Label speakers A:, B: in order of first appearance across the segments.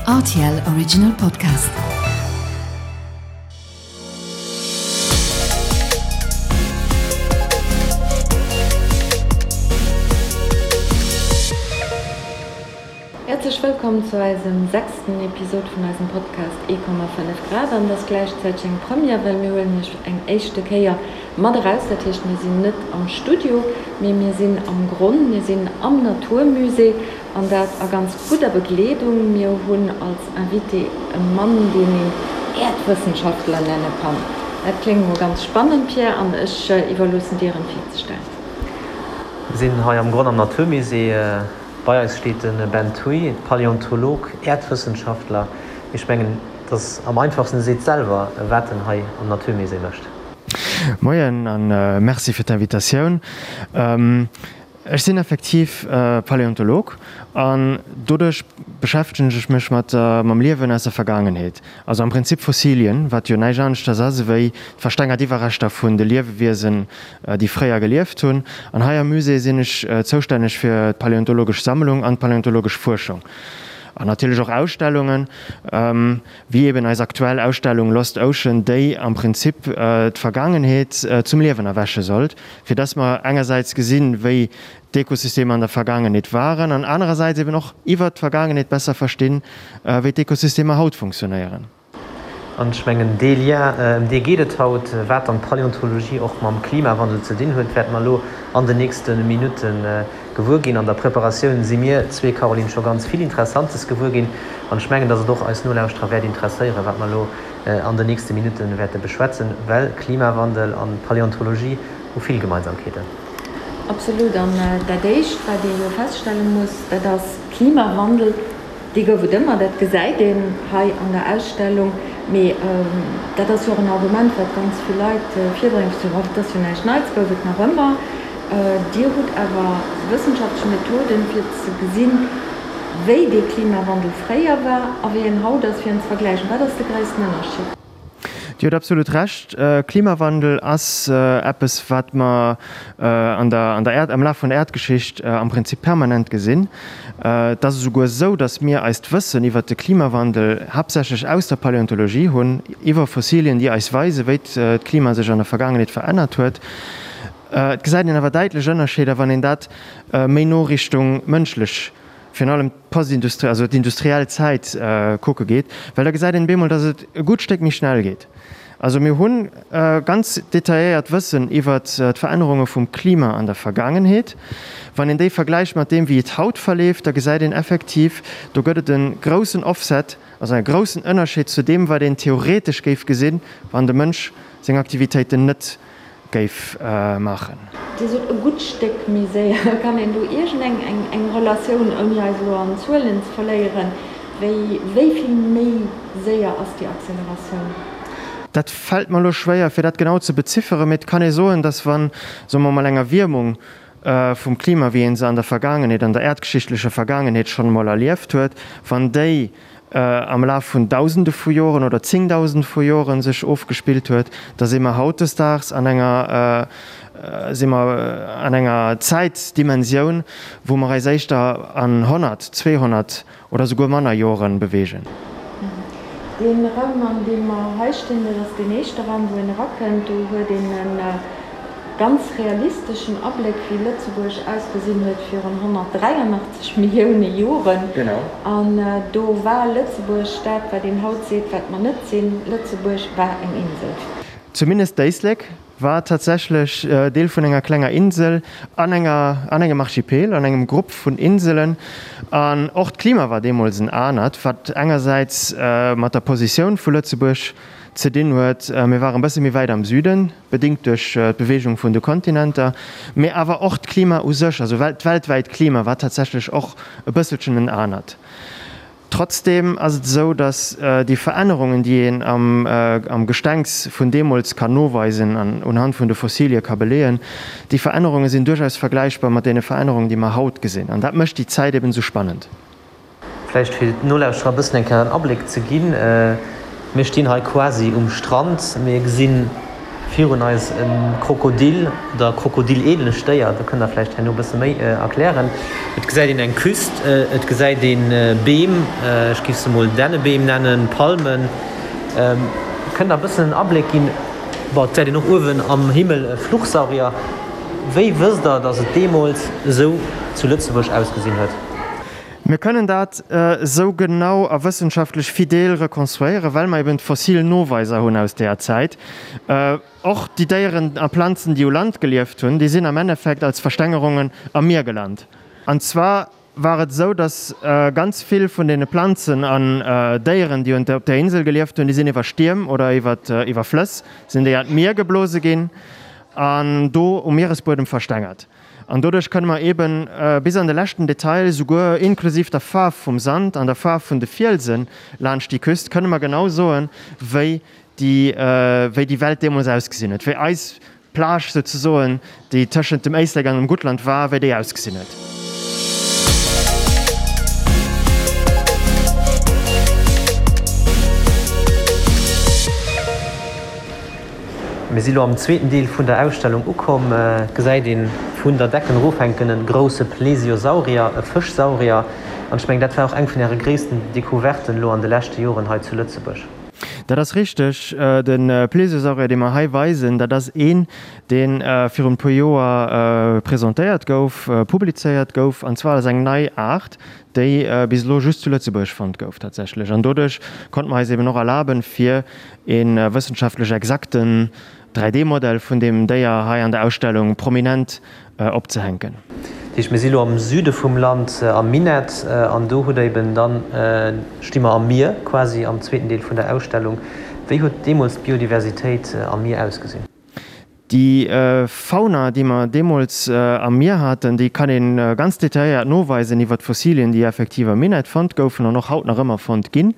A: Rtl Original Podcast.
B: Häerzlech wëllkomm zu eisem sechsten Episod vun eisem Podcast 1,5 Grad. An et ass gläichzäiteg eng Première, well mir huelen iech eng éischte Kéier mat eraus. Dat heescht, mir sinn net am Studio, mee mir sinn am Gronn, mir sinn am Naturmusée an dat a ganz gudder Begleedung. Mir hunn als Invité e Mann, deen een Äerdwëssenschaftler nenne kann. Dat kléngt mol ganz spannend, Pierre, an ech iwwerloossen dir en virzestellen.
C: Mir sinn hei am Gronn am Naturmusée. Bei eis steet de Ben Thuy, Paläontolog, Äerdwëssenschaftler. Ech mengen, et ass am einfachsten, e seet selwer, wat en hei am Naturmusée mécht.
D: Moien a Merci fir d'Invitatioun. Ech sinn effektiv Paläontolog an doduerch beschäftegen ech mech mat mam Liewen aus der Vergaangenheet. Also am Prinzip Fossilien, wat jo näischt aneschters ass ewéi d'verstengert Iwwerreschter vun de Liewewiesen, déi fréier gelieft hunn. An hei am Musée sinn ech zoustänneg fir d'paläontologesch Sammlung an d'paläontologesch Fuerschung. An natierlech och Ausstellungen, wéi eben eis aktuell Ausstellung Lost Ocean, déi am Prinzip d'Vergaangenheet zum Liewen erwäche sollt, fir dass mer engersäits gesinn, wéi d'Ökosystemer an der Vergaangenheet waren an anerersäits eben och iwwert d'Vergaangenheet besser verstinn, wéi d'Ökosystemer haut funktionéieren.
C: An ech mengen, dee Lien, ëm dee geet et haut, wat dann d'Paläontologie och mam Klimawandel ze dinn huet, wäerte mer elo an den nächste Minutte gewuer ginn. An der Preparatioun si mir zwee, Caroline, scho ganz vill Interessantes gewuer ginn. An ech mengen, dass et och eis Nolauschterer wäert interesséieren, wat mer elo an den nächste Minutte wäerte beschwätzen, well Klimawandel an Paläontologie hu vill Gemeinsamkeeten.
B: Absolut. An dat Éischt, wat ee jo feststelle muss, dat ass, Klimawandel, dee gouf et ëmmer, dat gesäit een hei an der Ausstellung. Mee dat ass jo och en Argument, wat ganz vill Leit virbréngen, fir ze soen, oh, dat ass jo näischt Neits, gouf et nach ëmmer. Dir hutt awer wëssenschaftlech Methoden, fir ze gesinn, wéi dee Klimawandel fréier war a wéi en haut ass, fir en ze vergläichen. Wat ass de gréissten Ënnerscheed?
D: Dir hutt absolut Recht. Klimawandel ass eppes, wat mer an der, an der Äerd, am Laf vun der Äerdgeschicht am Prinzip permanent gesinn. Et ass esouguer esou, datt mir eist Wëssen iwwert de Klimawandel haaptsächlech aus der Paläontologie hunn, iwwer Fossilien, déi eis weisen, wéi d'Klima sech an der Vergaangenheet verännert huet. Et gesäit een awer däitlech Ënnerscheeder, wann een dat méi no Richtung mënschlech, virun allem d'Postindustriell, also d'industriell Zäit kucke geet, well da gesäit een bemol, datt et e gutt Stéck méi schnell geet. Also mir hu ganz detailléiert Wëssen iwwert d'Verännerunge vum Klima an der Vergaangenheet. Wann een déi vergläicht mat deem, wéi et haut verleeft, da gesäit een effektiv, do gëtt et e groussen Offset, also e groussen Ënnerscheed zu deem, wat een theoretesch géif gesinn, wann de Mënsch seng Aktivitéiten net géif maachen.
B: Dir sot e gutt Stéck méi séier. Kann een do iergend eng eng Relatioun, ouni eis elo an Zuelen ze verléieren, wéi wéi vill méi séier ass déi Acceleratioun?
D: Dat fält mer elo schwéier, fir dat genau ze bezifferen, mee et kann ee soen, dass wann, soe mer emol, eng Erwiermung vum Klima, wéi ee se an der Vergaangenheet, an der äerdgeschichtlecher Vergaangenheet schonn emol erlieft huet, wann déi am Laf vun Dausende vu Joren oder Zéngdausende vu Joren sech ofgespillt huet, da si mer hautdesdaags an enger, si mer an enger Zäitdimensioun, wou mer eis éischter an 100, 200 oder souguer manner Joren beweegen.
B: Dee Raum, an deem mer hei stinn, dat ass deen éischte Raum, wou een erakënnt. Do huet een e ganz realisteschen Abléck, wéi Lëtzebuerg ausgesinn huet virun 183 Millioune Joren. An do war Lëtzebuerg dat, wat een haut seet, wat mer net sinn, Lëtzebuerg war eng Insel.
D: Zumindest d'Éislek war tatsächlech Deel vun enger klenger Insel an enger, an engem Archipel, an engem Grupp vun Inselen. An och d'Klima war deemools en anert, wat engersäits mat der Positioun vu Lëtzebuerg ze dinn huet, mir waren e bësse méi wäit am Süden, bedéngt duerch d'Beweegung vun de Kontinenter, mee awer och d'Klima u sech, also d'weltwäit Klima war tatsächlech och e bësselchen en anert. Trotzdeem ass et esou, datt déi Verännerungen, déi een am Gestengs vun deemools kann noweisen an unhand vun de Fossilie ka beleeën, déi Verännerunge sinn duerchaus vergläichbar mat deene Verännerungen, déi mer haut gesinn. An dat mécht déi Zäit eben esou spannend.
C: Vläicht fir d'Nolauschterer e bëssen eng Kéier en Abléck ze ginn, Mir stinn hei quasi um Strand, mir gesi. Virun eis e Krokodil oder krokodillähnlecht Déier, do kënnt der vläicht herno e bësse méi erklären. Et gesäit een eng Küst, et gesäit ee Beem, ech géif se mol Dännebeem nennen, Palmen. Kënnt der e bëssen en Abléck ginn? Bon, et gesäit een och uewen am Himmel e Fluchsaurier. Wéi wësst der, datt et deemools esou zu Lëtzebuerg ausgesinn huet?
D: Mir kënnen dat esou genau a wëssenschaftlech fidel rekonstruéieren, well mer eben d'fossil Noweiser hunn aus deeër Zäit. Och déi Déieren a Planzen, déi u Land gelieft hunn, déi sinn am Endeffekt als Verstengerungen am Mier gelant. An zwar war et esou, datt ganz vill vun deene Planzen an Déieren, déi op där Insel gelieft hunn, déi sinn iwwer Stierm oder iwwer Flëss sinn déi an d'Mier geblose ginn an do um Mieresbuedem verstengert. An doduerch kënne mer eeben bis an de leschten Detail, souguer inklusiv der Faarf vum Sand an der Faarf vun de Fielsen laanscht déi Küst, kënne mer genau soen, wéi déi, wéi déi Welt deemools ausgesinn huet, wéi eis Plage souzesoen, déi tëschent dem Éislek an dem Guttland war, wéi déi ausgesinn huet.
C: Mir si lo am zweeten Deel vun der Ausstellung ukomm. Et gesäit een vun der Decken erof hänken e grousse Plesiosaurier, e Fëschsaurier. An ech mengen, dat war och eng vun Äre gréissten Decouverten elo an de leschte Joren hei zu Lëtzebuerg.
D: Dat ass richteg. De Plesiosaurier, dee mer hei weisen, dat ass een, dee virun e puer Joer presentéiert gouf, publizéiert gouf, an zwar als eng nei Aart, déi bis elo just zu Lëtzebuerg fonnt gouf tatsächlech. An doduerch konnte mer eis eben och erlaben, fir e wëssenschaftlech exakten 3D-Modell vun deem Déier hei an der Ausstellung prominent opzehänken.
C: Dat heescht, mir si lo am Süde vum Land, am Minett, an do hutt Der eben dann, sti mer am Mier quasi, am zweeten Deel vun der Ausstellung. Wéi huet deemools d'Biodiversitéit am Mier ausgesinn?
D: Déi Fauna, déi mer deemools am Mier haten, déi kann ee ganz detailléiert noweisen iwwer d'Fossilien, déi effektiv am Minett fonnt goufen an och haut nach ëmmer fonnt ginn.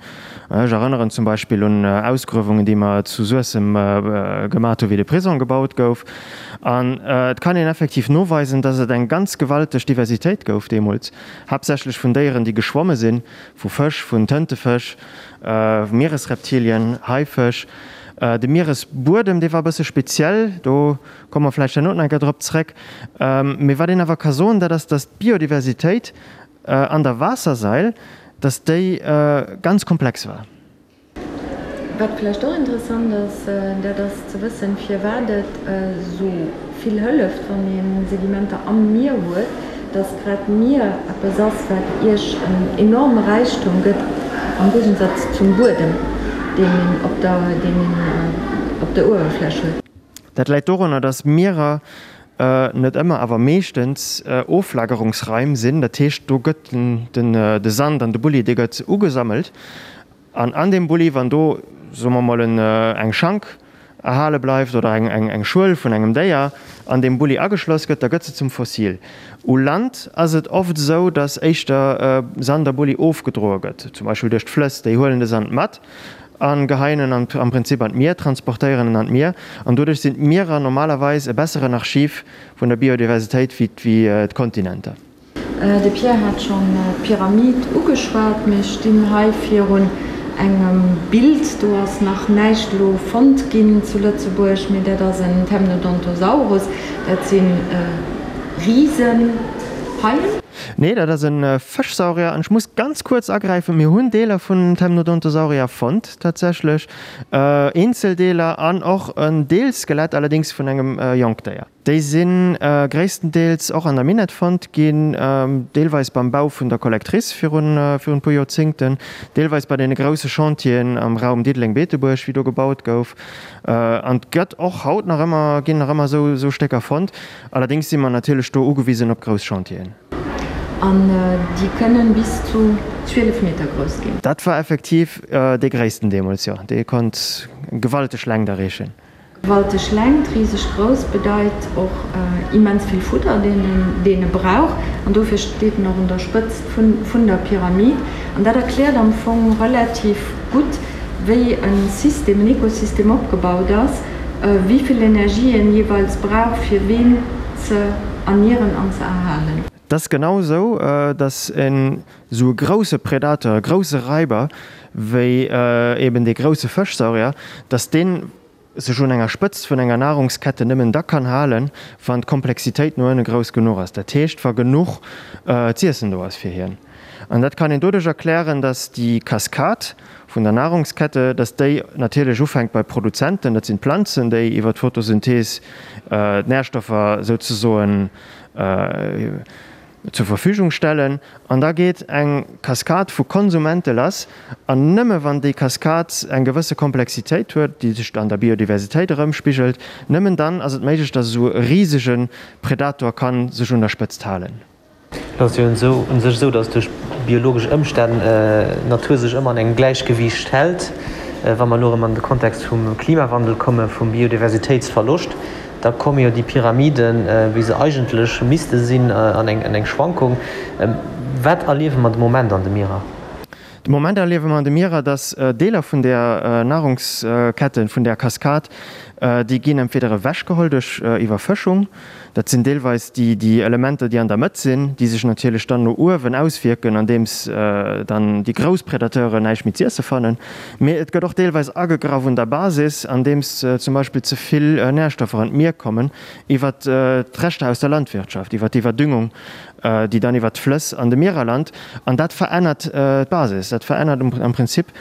D: Ech erënneren zum Beispill un Ausgruewungen, déi mer zu Suessem gemat hu wéi de Prisong gebaut gouf. An et kann een effektiv noweisen, dass et eng ganz gewalteg Diversitéit gouf deemools, haaptsächlech vun Déieren, déi geschwomme sinn, vu Fësch, vun Tëntefësch, Mieresreptilien, Haifësch. De Mieresbuedem, dee war e bësse speziell, do komme mer vläicht herno nach eng Kéier drop zréck. Mee wat een awer ka soen, dat ass, datt d'Biodiversitéit an der Waassersail, datt déi ganz komplex war.
B: Wat vläicht och interessant ass, dat ass ze wëssen, firwat et esou vill hëlleft, wann ee Sedimenter am Mier huet, dass grad d'Mier eppes ass, wat Iech en enorme Räichtum gëtt, am Géigensatz zum Buedem, deen een op der, deen een op der Uewerfläch huet.
D: Dat läit dorunner, dass Mierer net ëmmer, awer meeschtens Oflagerungsraim sinn. Dat heescht, do gëtt den, de Sand an de Bulli, dee gëtt ugesammelt An an deem Bulli, wann do, soe mer mol, eng Schank erhale bleift oder eng Schuel vun engem Déier an deem Bulli ageschloss gëtt, da gëtt se zum Fossil. U Land ass et oft esou, datt éischter Sand a Bulli ofgedroe gëtt, zum Beispill duerch d'Flëss. Déi huelen de Sand mat a geheien en am Prinzip an d'Mier, transportéieren en an d'Mier. An doduerch sinn d'Mierer normalerweis e besseren Archiv vun der Biodiversitéit wéi d'Kontinenter.
B: De Pierre hat schonn d'Pyramid ugeschwat. Mir stinn hei virun engem Bild, do ass nach näischt elo fonnt ginn zu Lëtzebuerg, mee dat ass en Temnodontosaurus. Dat si Risenhaien.
D: Nee, dat ass e Fëschsaurier. An ech muss ganz kuerz agräifen, Mir hunn Deeler vun Temnodontosaurier fonnt tatsächlech, Eenzeldeeler an och en Deelskelett, allerdéngs vun engem Jonkdéier. Déi si gréisstendeels och an der Minett fonnt ginn, deelweis beim Bau vun der Collectrice virun e puer Joerzéngten, deelweis bei deene grousse Chantieren am Raum Diddeleng-Beetebuerg, wéi do gebaut gouf. An et gëtt och haut nach ëmmer, ginn nach ëmmer esou Stécker fonnt. Allerdéngs si mer natierlech do ugewisen op grouss Chantieren.
B: An déi kënnen bis zu 12 Meter grouss ginn.
D: Dat war effektiv dee gréissten deemools, jo. Dee konnt gewalteg Längt erreechen.
B: Gewalteg Längt, riseg grouss bedeit och immens vill Fudder, deen e brauch. An dofir steet en och un der Spëtzt vun der Pyramid. An dat erkläert am Fong relativ gutt, wéi e System, en Ekosystem opgebaut ass, wéi vill Energie en jeeweils brauch, fir ween ze ernieren an ze erhalen.
D: Et ass genau esou, datt en esou e grousse Predateur, e grousse Raiber, wéi eben dee grousse Fëschsaurier, datt deen. sech un enger Spëtzt vun enger Nahrungskette nëmmen da kann halen, wann d'Komplexitéit no ënne grouss genuch ass, dat heescht, wa genuch z'iessen do ass fir hien. An dat kann een doduerch erklären, dass déi Kaskad vun der Nahrungskette, dass déi natierlech ufänkt bei Produzenten, dat sinn d'Planzen, déi iwwer d'Photosynthees d'Närstoffer souzesoen zur Verfügung stellen, an da geet eng Kaskad vu Konsumente lass, an nëmme wann déi Kaskad eng gewësse Komplexitéit huet, déi sech an der Biodiversitéit erëmspigelt, nëmmen dann ass et méiglech, datt esou e risege Predator ka sech un der Spëtzt halen.
C: Et ass jo u sech esou, datt duerch biologesch Ëmstänn d'Natur sech ëmmer an engem Gläichgewiicht hält. Wa mer elo erëm an de Kontext vum Klimawandel komme vum Biodiversitéitsverloscht, Da komme jo déi Pyramiden, wéi se eigentlech misste sinn, an eng Schwankung. Wat erliewe mer de Moment an de Mierer?
D: De Moment erliewe mer an de Mierer, datt Deeler vun där Nahrungsketten, vun där Kaskad, déi ginn entweder ewechgeholl duerch Iwwerfëschung, dat sinn deelweis déi Elementer, déi an der Mëtt sinn, déi sech natierlech dann no uewen auswierken, andeems dann déi grouss Predateuren näischt méi z'iesse fannen. Mee et gëtt och deelweis agegraff un der Basis, andeems zum Beispill ze vill Närstoffer an d'Mier kommen, iwwer d'Reschter aus der Landwirtschaft, iwwer d'Iwwerdüngung, déi dann iwwer d'Flëss an de Mierer lant. An dat verännert d'Basis, dat verännert am Prinzip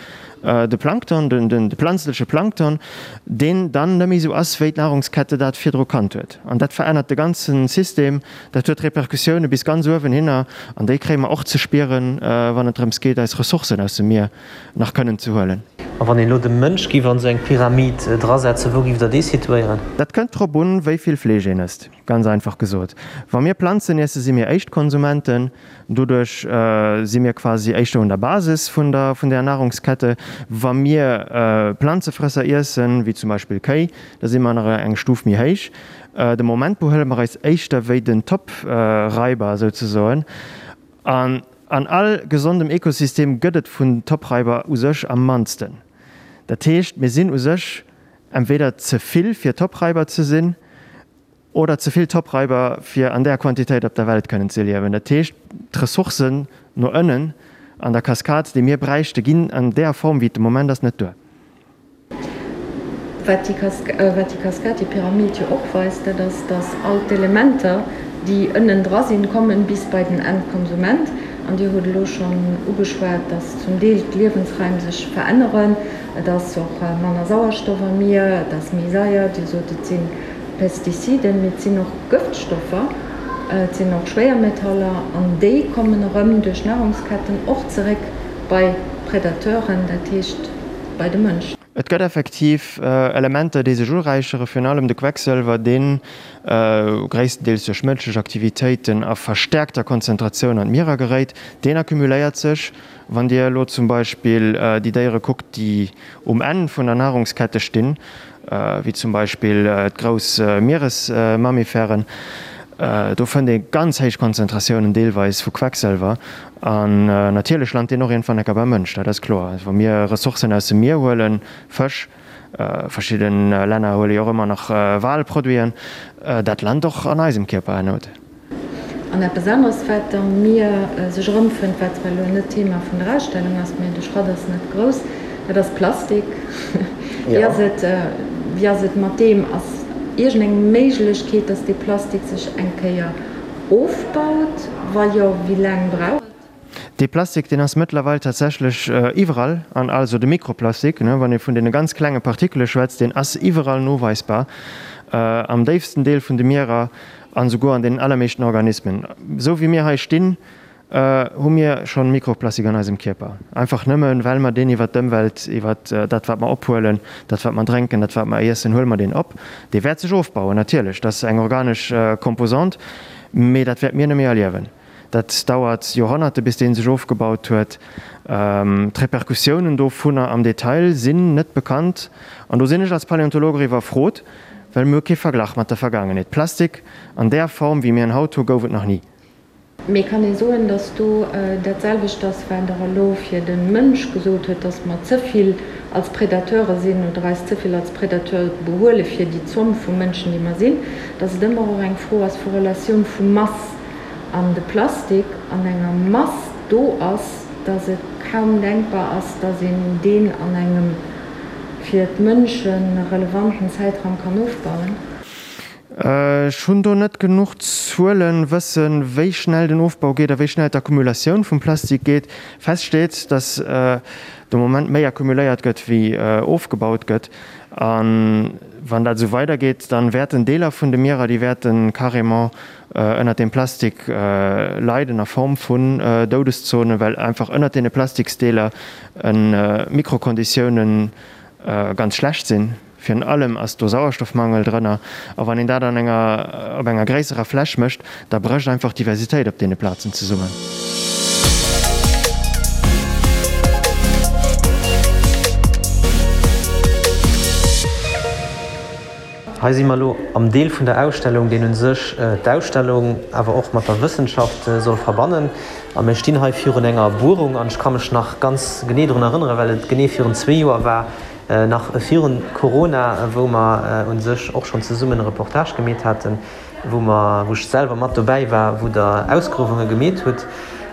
D: de Plankton, de planzleche Plankton, deen dann net méi esou ass, wéi d'Nahrungskette dat virdru kannt huet. An dat verännert de ganze System, dat huet Repercussioune bis ganz uewen hinner, an déi kréie mer och ze spieren, wann et drëms geet, eis Ressourcen aus dem Mier nach kënnen ze huelen.
C: A wann een elo de Mënsch giff an esou eng Pyramid drasetzen, wou giff der dee situéieren?
D: Dat kënnt drop un, wéi vill Fleesch een ësst, ganz einfach gesot. Wa mir Planzen iessen, si mir Éischt-Konsumenten, doduerch si mir quasi éischter un der Basis vun der vun der Nahrungskette. Wa mir Planzefrësser iessen, wéi zum Beispill Kéi, da si mer nach eng Stuf méi héich. De Moment behuele mer eis éischter wéi den Top-Raiber souzesoen. An an all gesondem Ekosystem gëtt et vun Topreiber u sech am mannsten. Dat heescht, mir sinn u sech entweder ze vill fir Topreiber ze sinn oder ze vill Topreiber fir an där Quantitéit op der Welt kënnen ze liewen. Dat heescht, d'Ressourcen no ënnen an der Kaskad, déi mir bräichte, ginn an där Form wéi et de Moment ass net duer.
B: Wat déi Kaskad, déi Pyramid jo och weist, dat ass, dass all d'Elementer, déi ënnen dra sinn, kommen bis bei den Endkonsument. An Dir hutt elo schonn ugeschwat, dass zum Deel d'Liewensraim sech veränneren. Et ass och manner Sauerstoff am Mier, et ass méi saier. Dir sot, et si Pestiziden, mee et sinn och Gëftstoffer, et sinn och Schwéiermetaller. An déi kommen erëm duerch d'Nahrungsketten och zeréck bei d'Predateuren, dat heescht, bei de Mënsch.
D: Et gëtt effektiv Elementer, déi sech uräichere, virun allem de Quecksëlwer, dee gréisstendeels duerch mënschlech Aktivitéiten a verstäerkter Konzentratioun an d'Mierer geréit. Deen accumuléiert sech. Wann Dir elo zum Beispill déi Déiere kuckt, déi um Enn vun der Nahrungskette stinn, wéi zum Beispill d'grouss Mieresmammifèren, do fënnt ee ganz héich Konzentratiounen deelweis vu Quecksëlwer. An natierlech lant deen och iergendwann enker beim Mënsch, dat ass kloer. Wa mir Ressourcen aus dem Mier huelen, Fësch, verschidde Länner huele jo och ëmmer nach Walproduiten, dat lant och an eisem Kierper herno.
B: An eppes aneres, wat am Mier sech erëmfënnt, wat zwar elo net d'Thema vun der Ausstellung ass, mee de Schrott ass net grouss, dat ass Plastik. Wéi ass et, wéi ass et mat deem? Ass iergendeng Méiglechkeet, dass dee Plastik sech eng Kéier ofbaut? Wa jo, wéi laang brauch et?
D: Dee Plastik, deen ass mëttlerweil tatsächlech iwwerall, an also de Mikroplastik, wann ee vun deene ganz klenge Partikele schwätzt, deen ass iwwerall noweisbar, am déifsten Deel vun de Mierer an esouguer an deenen allermeeschten Organismen. Esou wéi mir hei stinn, hu mir schonn Mikroplastik an eisem Kierper, einfach nëmmen, well mer deen iwwert d'Ëmwelt, iwwert dat, wat mer ophuelen, dat, wat mer drénken, dat, wat mer iessen, huele mer deen op. Dee wäert sech ofbauen, natierlech, dat ass eng organesch Composante, mee dat wäerte mir net méi erliewen. Dat dauert Joerhonnerte bis dee sech ofgebaut huet. D'Repercussiounen dovunner am Detail sinn net bekannt. An do sinn ech als Paläontolog och iwwerfrot, well mir hu kee Verglach mat der Vergaangenheet. Plastik an där Form, wéi mir en haut hu, gouf et nach ni.
B: Mee kann ee soen, datt do dat selwecht ass, wat Der elo fir de Mënsch gesot huet, datt mer ze vill als Predateure sinn oder eis ze vill als Predateur behuele fir déi Zomm vu Mënschen, déi mer sinn, datt et ëmmer och eng Fro ass vu Relatioun vu Mass an de Plastik an enger Mass do ass, dass et kaum denkbar ass, dass een deen an engem. fir d'Mënsche relevanten Zäitraum kann ofbauen?
D: Ech hunn do net genuch Zuelen, wëssen, wéi schnell den Ofbau geet a wéi schnell d'Accumulatioun vum Plastik geet. Fest steet, dass de Moment méi accumuléiert gëtt, wéi ofgebaut gëtt. A wann dat esou weidergeet, dann wäerten Deeler vun de Mierer, déi wäerte carrément ënnert deem Plastik leiden a Form vun Doudeszonen, well einfach ënnert deene Plastiksdeeler d'Mikrokonditiounen ganz schlecht sinn. Virun allem ass do Sauerstoffmangel drënner. A wann een dat an enger, op enger gréisserer Fläch mécht, da brécht einfach d'Diversitéit op deene Plazen zesummen.
C: Hei si mer elo am Deel vun der Ausstellung, deen u sech d'Ausstellung awer och mat der Wëssenschaft soll verbannen. A mir stinn hei virun enger Buerung an ech ka mech nach ganz genee drun erënneren, well et genee virun zwee Joer war, nach virun Corona, wou mer u sech och schonn zesummen e Reportage gemeet haten, wou mer, wou ech selwer mat dobäi war, wou Der Ausgruewunge gemeet hutt.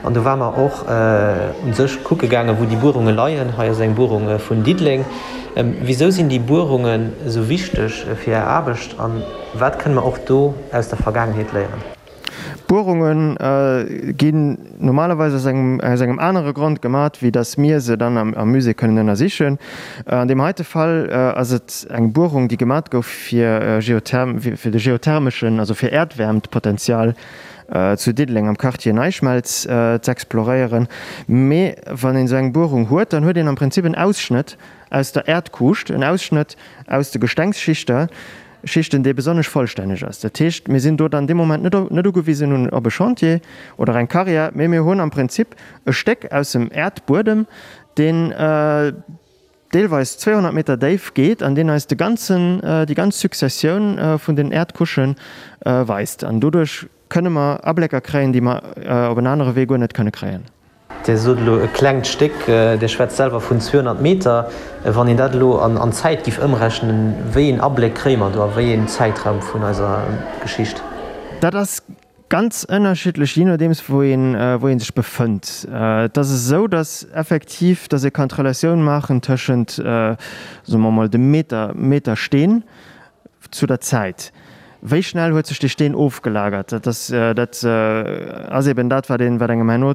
C: An do ware mer och u sech kucke gaangen, wou déi Buerunge leien. Hei ass eng Buerung vun Diddeleng. Wisou sinn déi Buerungen esou wichteg fir Är Aarbecht a wat kënne mer och do aus der Vergaangenheet léieren?
D: D'Buerunge ginn normalerweis aus engem aus engem anere Grond gemat, wéi datt mir se dann am Musée kënnen ënnersichen. An deem heite Fall ass et eng Buerung, déi gemat gouf fir Geotherm fir de geothermeschen, also fir Äerdwäermtpotenzial zu Diddeleng am Quartier NeiSchmelz z'exploréieren. Mee wann een esou eng Buerung huet, dann huet een am Prinzip en Ausschnëtt aus der Äerdkuuscht, en Ausschnëtt aus de Gestengsschichter, Schichten, dee besonnesch vollstänneg ass. Dat heescht, mir sinn do dann dee Moment net net ugewisen un op e Chantier oder eng Carrière, mee mir hunn am Prinzip e Stéck aus dem Äerdbuedem, deen deelweis 200 Meter déif geet an deen eis de ganzen, déi ganz Successioun vun den Äerdcouchen weist. An doduerch kënne mer Ablécker kréien, déi mer op en anere Wee guer net kënne kréien.
C: Dir sot elo e klengt Stéck, Dir schwätzt selwer vun 200 Meter. Wann een dat elo an Zäit giff ëmrechnen, wéi een Abléck kréie mer do a wéi een Zäitraum vun eiser Geschicht?
D: Dat ass ganz ënnerschiddlech, jee nodeems wou een, wou ee sech befënnt. Et ass esou, datt effektiv, datt ee kann d'Relatioun maachen tëschent, soe mer emol, dem Meter, Meter Steen zu der Zäit. Wéi schnell huet sech dee Steen ofgelagert? Dat ass, dat ass eben dat, wat een, wat engem herno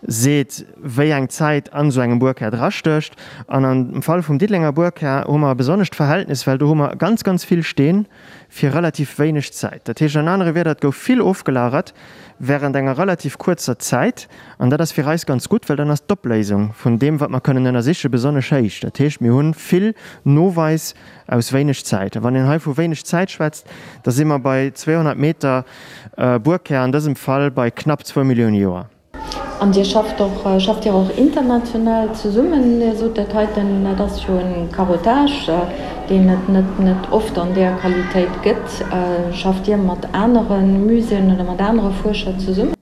D: seet, wéi eng Zäit an esou engem Buerkär drastécht. An am Fall vum Diddelenger Buerkär hu mer e besonnescht Verhältnis, well do hu mer ganz, ganz vill Steen fir relativ wéineg Zäit. Dat heescht an anere Wierder, et gouf vill ofgelagert während enger relativ kuerzer Zäit. An dat ass fir eis ganz gutt, well dann ass d'Opléisung vun deem, wat mer kënnen ënnersichen, besonnesch héich. Dat heescht, mir hu vill Noweis Aus wéineg Zäit. A wann een hei vu wéineg Zäit schwätzt, da si mer bei 200 Meter Buerkär, an dësem Fall bei knapp zwou Millioune Joer.
B: An Dir schafft och, schafft Dir och international zesummen? Dir sot dat heiten, dat ass jo e Carottage, deen et net net oft an där Qualitéit gëtt. Schafft Dir mat anere Muséeën oder mat anere Fuerscher zesummen?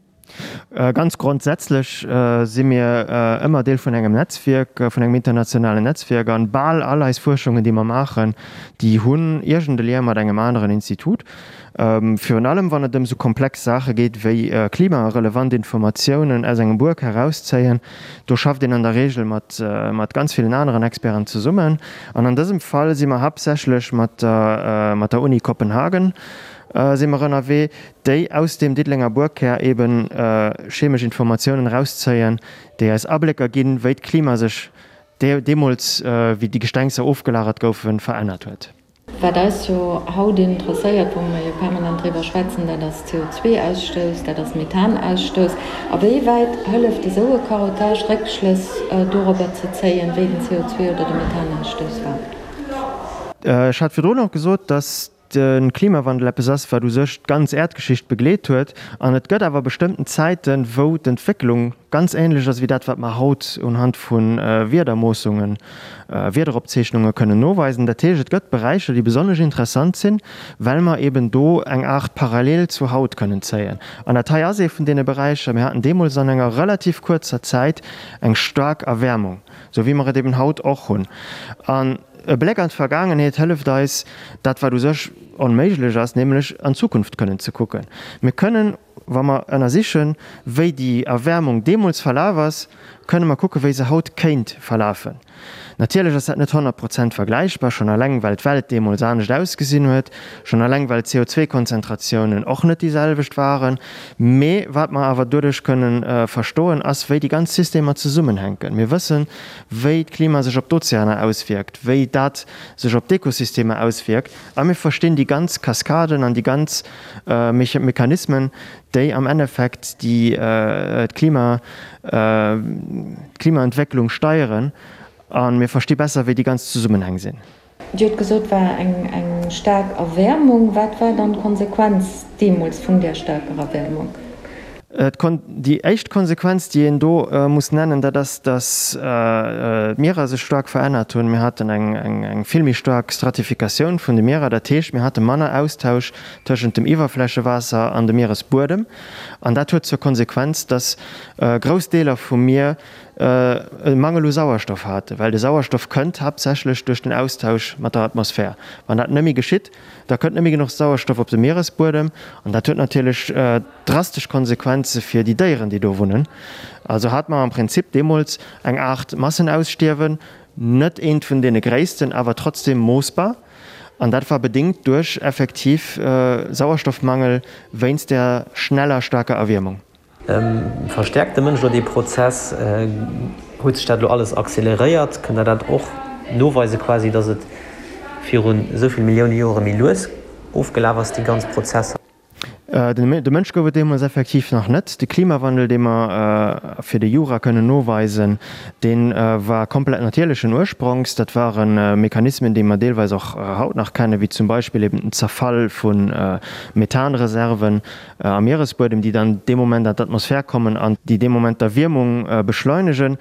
D: Ganz grondsätzlech si mir ëmmer Deel vun engem Netzwierk, vun engem internationalen Netzwierk. An bal all eis Fuerschungen, déi mer maachen, déi hunn iergend e Lien mat engem aneren Institut. Virun allem wann et ëm esou komplex Saache geet wéi klimarelevant Informatiounen aus engem Buerk herauszéien. Do schafft een an der Reegel mat mat ganz villen aneren Experten zesummen. An an dësem Fall si mer haaptsächlech mat der mat der Uni Kopenhagen si mer ënnerwee. déi aus deem Diddelenger Buerkkär eben chemesch Informatiounen erauszéien, déi eis Ablécker ginn, wéi d'Klima sech deemools, wéi déi Gestengser ofgelagert goufen, verännert huet.
B: Wat eis jo haut interesséiert, wou mer jo permanent driwwer schwätzen, dat ass CO2-Ausstouss, dat ass Methanausstouss. A wéi wäit hëlleft esou e Carottage, Réckschlëss dorobber ze zéien, wéi den CO2 oder de Methanausstouss war?
D: Ech hat virdrun och gesot, dass de Klimawandel eppes ass, wat u sech d'ganz Äerdgeschicht begleet huet. An et gëtt awer bestëmmten Zäiten, wou d'Entwécklung ganz änlech ass wéi dat, wat mer haut unhand vu Wiedermoossungen, Wiederopzeechnunge kënnen noweisen. Dat heescht, et gëtt Beräicher, déi besonnesch interessant sinn, well mer eben do eng Aart Parallel zu haut kënnen zéien. An dat hei ass ee vun deene Beräicher. Mir haten deemools an enger relativ kuerzer Zäit eng staark Erwäermung, sou wéi mer et eben haut och hunn. An E Bléck an d'Vergaangenheet hëlleft eis, dat wat u sech onméiglech ass, nämlech an d'Zukunft kënnen ze kucken. Mir kënnen, wa mer ënnersichen, wéi déi Erwäermung deemools verlaf ass, kënne mer kucke wéi se haut kéint verlafen. Natierlech ass dat net 100 Prozent vergläichbar, schonn eleng well d'Welt deemools anescht ausgesinn huet, schonn eleng well d'CO2-Konzentratiounen och net déi selwecht waren. Mee wat mer awer doduerch kënne verstoen, ass wéi déi ganz Systemer zesummenhänken. Mir wëssen, wéi d'Klima sech op d'Ozeaner auswierkt, wéi dat sech op d'Ekosystemer auswierkt a mir verstinn déi ganz Kaskaden an déi ganz Mechanismen, déi am Endeffekt déi d'Klima, d'Klimaentwécklung steieren a mir versti besser, wéi déi ganz Zesummenhäng sinn.
B: Dir hutt gesot, war eng eng staark Erwäermung. Wat war dann d'Konsequenz deemools vun där staarker Erwäermung?
D: Déi éischt Konsequenz, déi een do muss nennen, dat ass, datt d'Mierer sech staark verännert hunn. Mir haten eng vill méi staark Stratifikatioun vun de Mierer. Dat heescht, mir hate manner Austausch tëschent dem Iwwerflächewaasser an dem Mieresbuedem. An dat huet zur Konsequenz, datt grouss Deeler vum Mier e Mangel u Sauerstoff haten, well de Sauerstoff kënnt haaptsächlech duerch den Austausch mat der Atmosphär. Wann dat net méi geschitt, da kënnt net méi genuch Sauerstoff op de Mieresbuedem an dat huet natierlech drastesch Konsequenze fir déi Déieren, déi do wunnen. Also hat mer am Prinzip deemools eng Aart Massenausstierwen, net eent vun deene gréissten, awer trotzdem moossbar. An dat war bedéngt duerch effektiv Sauerstoffmangel wéinst der schneller staarker Erwiermung.
C: Verstäerkt de Mënsch elo dee Prozess? Huet sech dat elo alles acceleréiert? Kënnt Der dat och noweisen quasi, datt et virun esou vill Millioune Joere méi lues ofgelaf ass, déi ganz Prozesser?
D: De Mënsch gouf et deemools effektiv nach net. De Klimawandel, dee mer fir de Jura kënnen noweisen, dee war komplett natierlechen Ursprongs. Dat ware Mechanismen, déi mer deelweis och haut nach kennen, wéi zum Beispill eben den Zerfall vu Methanreserven am Mieresbuedem, déi dann dee Moment an d'Atmosphär kommen an déi dee Moment d'Erwiermung beschleunegen.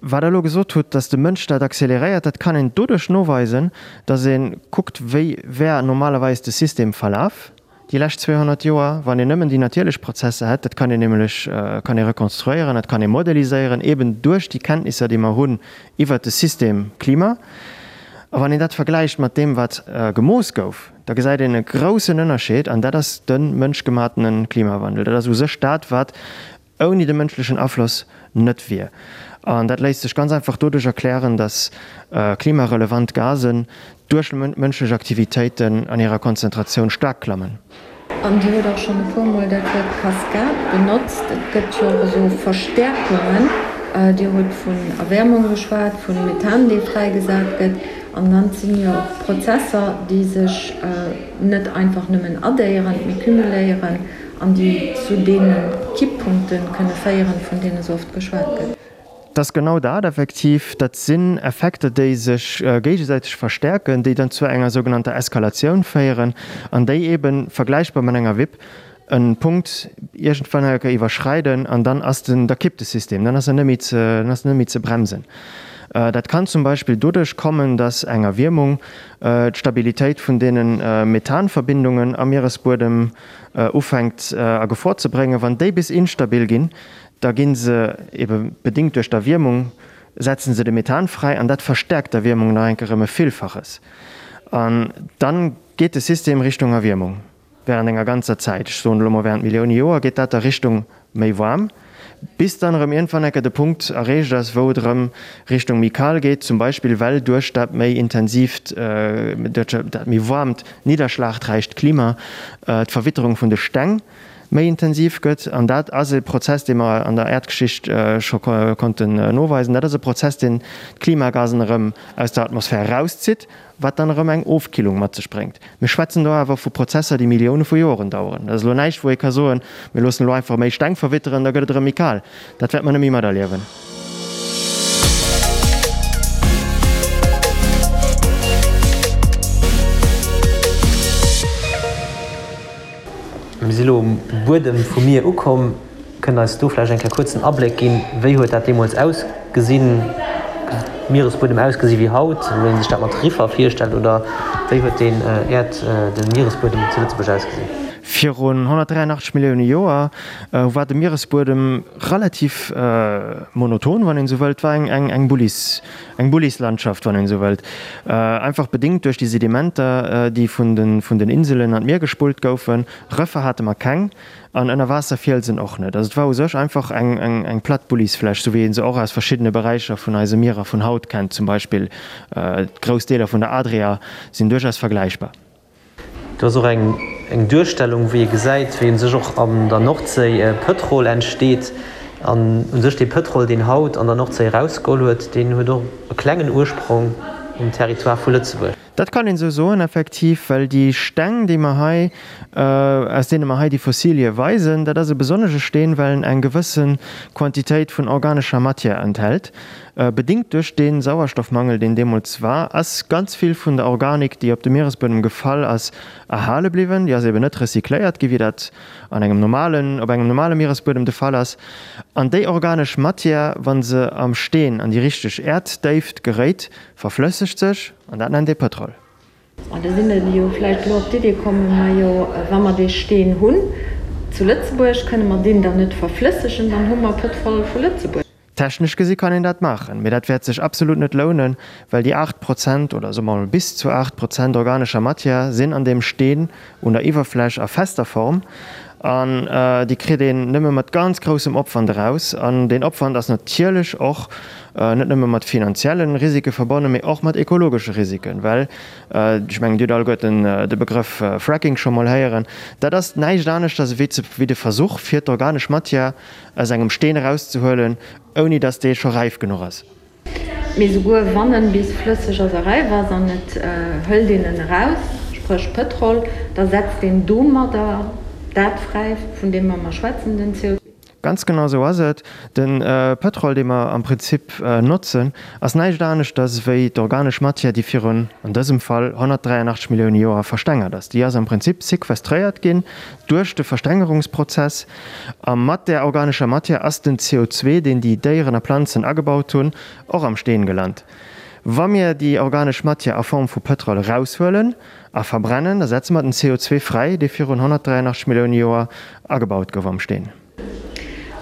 D: Wat Der elo gesot hutt, dass de Mënsch dat acceleréiert, dat kann een doduerch noweisen, dass ee kuckt, wéi wär normalerweis de System verlaf déi lescht 200 Joer, wann een nëmmen déi natierlech Prozesser hätt. Dat kann een nämlech kann ee rekonstruéieren, dat kann ee modeliséieren, eeben duerch déi Kenntnisser, déi mer hunn iwwert de System Klima. A wann een dat vergläicht mat deem, wat gemooss gouf, da gesäit een e groussen Ënnerscheed, an dat ass de mënschgematene Klimawandel. Dat ass u sech dat, wat ouni de mënschlechen Afloss net wier. An dat léisst sech ganz einfach doduerch erklären, datt klimarelevant Gasen duerch mënschlech Aktivitéiten an hirer Konzentratioun staark klammen.
B: An Dir hutt och schonn e puermol dat Wuert Kaskad benotzt. Et gëtt jo och esou Verstäerkungen. Dir hutt vun Erwäermung geschwat, vu Methan, dee fräigesat gëtt. An dann sinn jo och Prozesser, déi sech net einfach nëmmen addéieren, mee cumuléieren an déi zu deene Kipppunkte kënne féieren, vun deene sou oft geschwat gëtt.
D: Et ass genau dat effektiv. Dat sinn Effekter, déi sech géigesäiteg verstäerken, déi dann zu enger sougenannter Eskalatioun féieren an déi eeben, vergläichbar mat enger Wipp, e Punkt iergendwann eng Kéier iwwerschreiden an dann ass den, da kippt de System, dann ass en net méi ze, dann ass en net méi ze bremsen. Dat kann zum Beispill doduerch kommen, dass eng Erwiermung d'Stabilitéit vun deene Methanverbindungen am Mieresbuedem ufänkt a Gefor ze bréngen. Wann déi bis instabil ginn, da gi se ebe bedéngt duerch d'Erwiermung, setzen se de Methan fräi an dat verstäerkt d'Erwiermung nach eng Kéier ëm e Villfaches. An dann geet de System Richtung Erwiermung während enger ganzer Zäit, ech soen elo mol während Millioune Joer, geet dat da Richtung méi waarm, bis dann erëm iergendwann eng Kéier de Punkt erreecht ass, wou et erëm Richtung méi kal geet, zum Beispill well duerch dat méi intensiivt, duerch dat méi waarmt, nidderschlagräicht Klima d'Verwitterung vun de Steng méi intensiv gëtt. An dat ass e Prozess, dee mer an der Äerdgeschicht scho konnten noweisen. Dat ass e Prozess, deen d'Klimagasen erëm aus der Atmosphär erauszitt, wat dann erëm eng Ofkillung mat sech bréngt. Mir schwätzen do awer vu Prozesser, déi Millioune vu Joren daueren. Dat ass elo näischt, wou ee ka soen, mir loossen elo einfach méi Steng verwitteren, da gëtt et erëm méi kal. Dat wäerte mer net méi materliewen.
C: Mir si lo um Buedem vum Mier ukomm. Kënnt eis do vläicht eng Kéier kuerz en Abléck ginn, wéi huet dat deemools ausgesinn, Mieresbuedem ausgesi wéi haut, wéi een sech dat mat Riffer virstellt, oder wéi huet den Äerd, de Mieresbuedem zu Lëtzebuerg ausgesinn?
D: Virun 183 Millioune Joer war de Mieresbuedem relativ monoton, wann een esou wëllt, war eng Bullis, eng Bullislandschaft, wann een esou wëllt, einfach bedéngt duerch déi Sedimenter, déi vun den Inselen an d'Mier gespullt goufen. Rëffer hate mer keng an Ënnerwaasserfielsen och net. Also et war u sech einfach eng platt Bullisfläch, sou wéi ee se och aus verschiddene Beräicher vun eise Mierer vun haut kennt, zum Beispill grouss Deeler vun der Adria sinn duerchaus vergläichbar.
C: Do ass och eng Duerstellung, wéi ee gesäit, wéi u sech och an der Nordséi Pëtrol entsteet. An u sech dee Pëtrol, deen haut an der Nordséi erausgeholl huet, deen huet och e klengen Ursprong um Territoire vu Lëtzebuerg.
D: Dat kann een esou soen, effektiv, well déi Steng, déi mer hei, aus deene mer hei déi Fossilie weisen, dat ass e besonnesche Steen, well en eng gewësse Quantitéit vun organescher Matière enthält. Bedingt duerch dee Sauerstoffmangel, deen deemools war, ass ganz vill vun der Organik, déi op de Mieresbuedem gefall ass, erhale bliwwen. Déi ass eben net recycléiert gi wéi dat an engem normalen, op engem normale Mieresbuedem de Fall ass. An déi organesch Matière, wa se am Steen an déi richteg Äerddéift geréit, verflëssegt sech, an dat nennt ee Pëtrol.
B: An da sinn der jo vläicht elo op d'Idee kommen, Majo, wa mer dee Steen hunn zu Lëtzebuerg, kënne mer deen dann net verflëssegen, dann hu mer Pëtrol vu Lëtzebuerg.
D: Technesch gesi kann een dat maachen, mee dat wäert sech absolut net lounen, well déi 8 Prozent, oder soe mer mol bis zu 8 Prozent organescher Matière sinn an deem Steen un der Iwwerfläch a fester Form an déi kritt een nëmme mat ganz groussem Opwand eraus. An deen Opwand ass natierlech och net nëmme mat finanzielle Risike verbonnen, mee och mat ekologesche Risiken, well, ech mengen, Dir hutt alleguerten de Begrëff Fracking scho mol héieren, dat ass näischt aneschters ewéi de Versuch, fir d'organesch Matière aus engem Steen erauszehuelen, ouni datt dee scho räif genuch ass.
B: Mee souguer wann en bis flësseg ass a räif ass an et hëlt een en eraus, spréch Pëtrol, da setzt een domadder dat fräi, vun deem mer mer schwätzen, den CO2.
D: Ganz genau esou ass et. De Pëtrol, dee mer am Prinzip notzen, ass näischt aneschters ewéi d'organesch Matière, déi virun, an dësem Fall, 183 Millioune Joer verstengert ass. Déi ass am Prinzip sequestréiert ginn duerch de Verstengerungsprozess. A mat där organescher Matière ass den CO2, deen déi Déieren a Planzen agebaut hunn, och am Steen gelant. Wa mir déi organesch Matière a Form vu Pëtrol eraushuelen a verbrennen, da setze mer den CO2 fräi, dee virun 183 Millioune Joer agebaut gouf am Steen.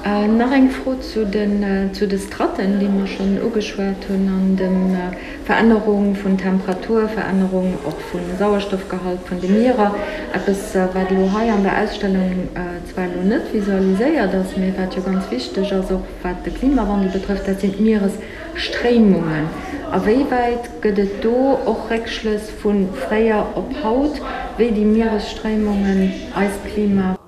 B: Nach eng Fro zu den zu de Stratten, déi mer schonn ugeschwat hunn, an dem Verännerung vun Temperatur, Verännerung och vu Sauerstoffgehalt vun de Mierer. Eppes, wat elo hei an der Ausstellung zwar elo net visualiséiert ass, mee wat jo ganz wichteg ass, och wat de Klimawandel betrëfft, dat sinn d'Mieresstréimungen. A wéi wäit gëtt et do och Réckschlëss vu fréier op haut, wéi déi Mieresstréimungen eist Klima.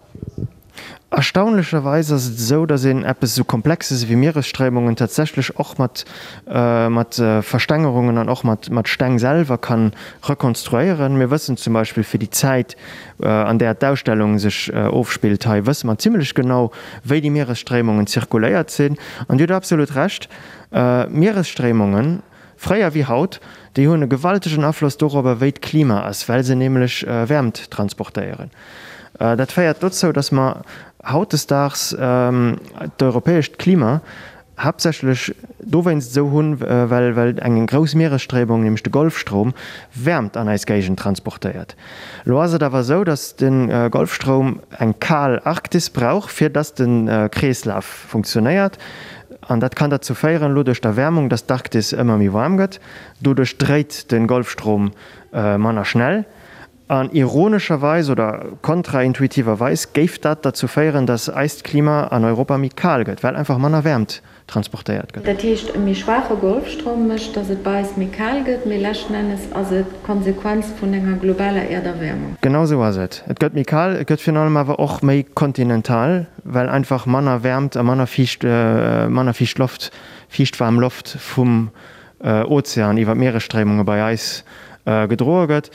D: Erstaunlecherweis ass et esou, datt een eppes esou Komplexes ewéi Mieresstréimungen tatsächlech och mat mat Verstengerungen an och mat mat Steng selwer kann rekonstruéieren. Mir wëssen zum Beispill fir déi Zäit, an där d'Ausstellung sech ofspillt hei, wësse mer zimlech genau, wéi déi Mieresstréimungen zirkuléiert sinn. An Dir hutt absolut Recht, Mieresstréimungen, Fréier wéi haut, déi hunn e gewaltegen Afloss dorobber, wéi d'Klima ass, well se nämlech Wäermt transportéieren. Dat féiert dozou, datt mer hautdesdaags d'europäescht Klima haaptsächlech dowéinst esou hunn, well well eng grouss Mieresstréimung, nämlech de Golfstroum, Wäermt an eis Géigend transportéiert. Elo ass et awer esou, datt de Golfstroum eng kal Arktis brauch, fir datt de Kreeslaf funktionéiert. An dat kann derzou féieren, elo duerch d'Erwäermung, datt d'Arktis ëmmer méi waarm gëtt. Doduerch dréit de Golfstrom manner schnell. An ironescherweis oder kontraintuitiverweis géif dat derzou féieren, datt eist Klima an Europa méi kal gëtt, well einfach manner Wäermt transportéiert gëtt.
B: Dat heescht, e méi schwaache Golfstroum mécht, datt et bei eis méi kal gëtt, mee leschten Ennes ass et d'Konsequenz vun enger globaler Äerderwäermung.
D: Genau esou ass et. Et gëtt méi kal, et gëtt virun allem awer och méi kontinental, well einfach manner Wäermt a manner fiicht, manner fiicht Loft, fiichtwaarm Loft vum Ozean iwwer d'Mieresstréimunge bei eis gedroe gëtt.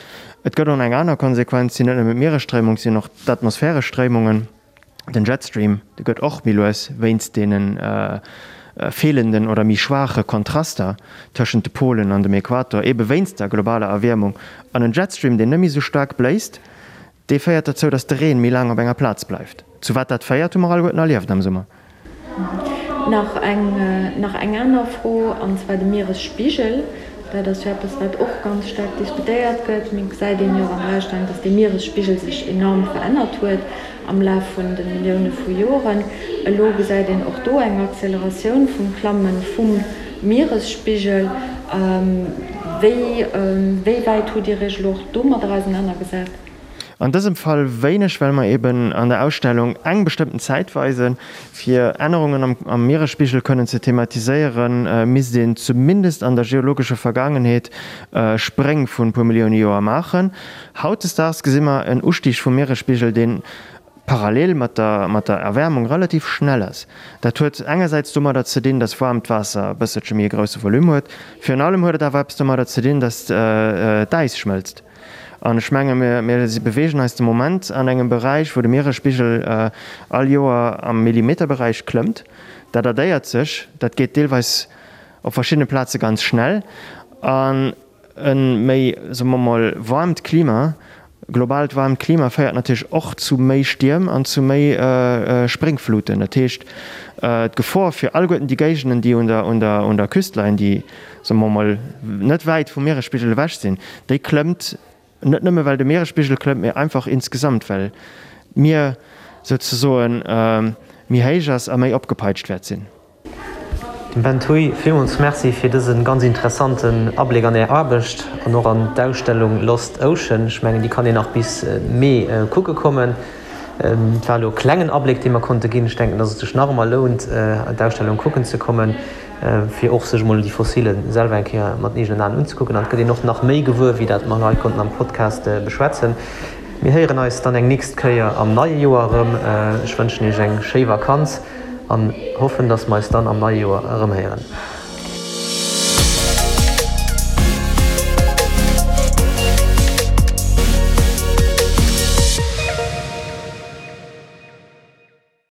D: Et gëtt och nach eng aner Konsequenz, sinn net nëmmen d'Mieresstréimung, sinn och d'atmosphäresch Stréimungen. Den Jetstream, dee gëtt och méi lues wéinst deene feelenden oder méi schwaache Kontraster tëschent de Polen an dem Äquator, ebe wéinst der globaler Erwiermung. An en Jetstream, deen net méi esou staark bléist, Dee féiert dozou, datt de Reen méi laang op enger Plaz bleift. Zu wat dat féiert, hu mer alleguerten erlieft am Summer.
B: Nach eng, nach eng aner Fro, an zwar de Mieresspigel. Dat ass jo eppes, wat och ganz staark diskutéiert gëtt. Mee et gesäit een jo och an der Ausstellung, dass dee Mieresspigel sech enorm verännert huet am Laf vun de Millioune vu Joren. Elo gesäit een och do eng Acceleratioun vum Klamme vum Mieresspigel. Wéi, wéi wäit hutt Dir Iech elo och domadder ausenanergesat?
D: An dësem Fall wéineg, well mer eben an der Ausstellung eng bestëmmten Zäit weisen. Fir Ännerungen am Mieresspigel kënnen ze thematiséieren, misst een zumindest an der geologescher Vergaangenheet Spréng vun e puer Millioune Joer maachen. Hautdesdaags gesi mer en Ustig vum Mieresspigel, dee parallel mat der mat der Erwärmung relativ schnell ass. Dat huet engersäits domadder ze dinn, dass waarmt Waasser e bësselche méi e grousse Volume huet. Virun allem huet et awer eppes domadder ze dinn, dass d'Äis schmëlzt. An ech menge mir beweegen eis de Moment an engem Beräich, wou de Mieresspigel all Joer am Millimeterberäich klëmmt. Dat addéiert sech, dat geet deelweis op verschiddene Plaze ganz schnell. An e méi, soe mer mol, waarmt Klima, globaalt waarmt Klima féiert natierlech och zu méi Stierm an zu méi Spréngfluten. Dat heescht, d'Gefor fir alleguerten déi Géigenden, déi un der Küst leien, déi, soe mer mol, net wäit vum Mieresspigel ewech sinn, déi klëmmt net nëmme well de Mieresspigel klëmmt, mee einfach insgesamt well d'Mier souzesoen méi héich ass a méi opgepeitscht wäert sinn.
C: Dem Ben Thuy villmools Merci fir dëse ganz interessanten Abléck an Är Aarbecht an och an d'Ausstellung Lost Ocean. Ech mengen déi kann een nach bis Mee kucke kommen. Et war elo e klengen Abléck dee mer konnte ginn. Ech denken, dass et sech nach ëmmer lount d'Ausstellung kucken ze kommen, fir och sech emol déi Fossile selwer eng Kéier mat den eegenen Aen unzekucken. An et gëtt een och nach méi gewuer, wéi dat mer hei konnten am Podcast beschwätzen. Mir héieren eis dann eng nächst Kéier am neie Joer erëm. Ech wënschen Iech eng schéi Vakanz an hoffen, dass mer eis dann am neie Joer erëmhéieren.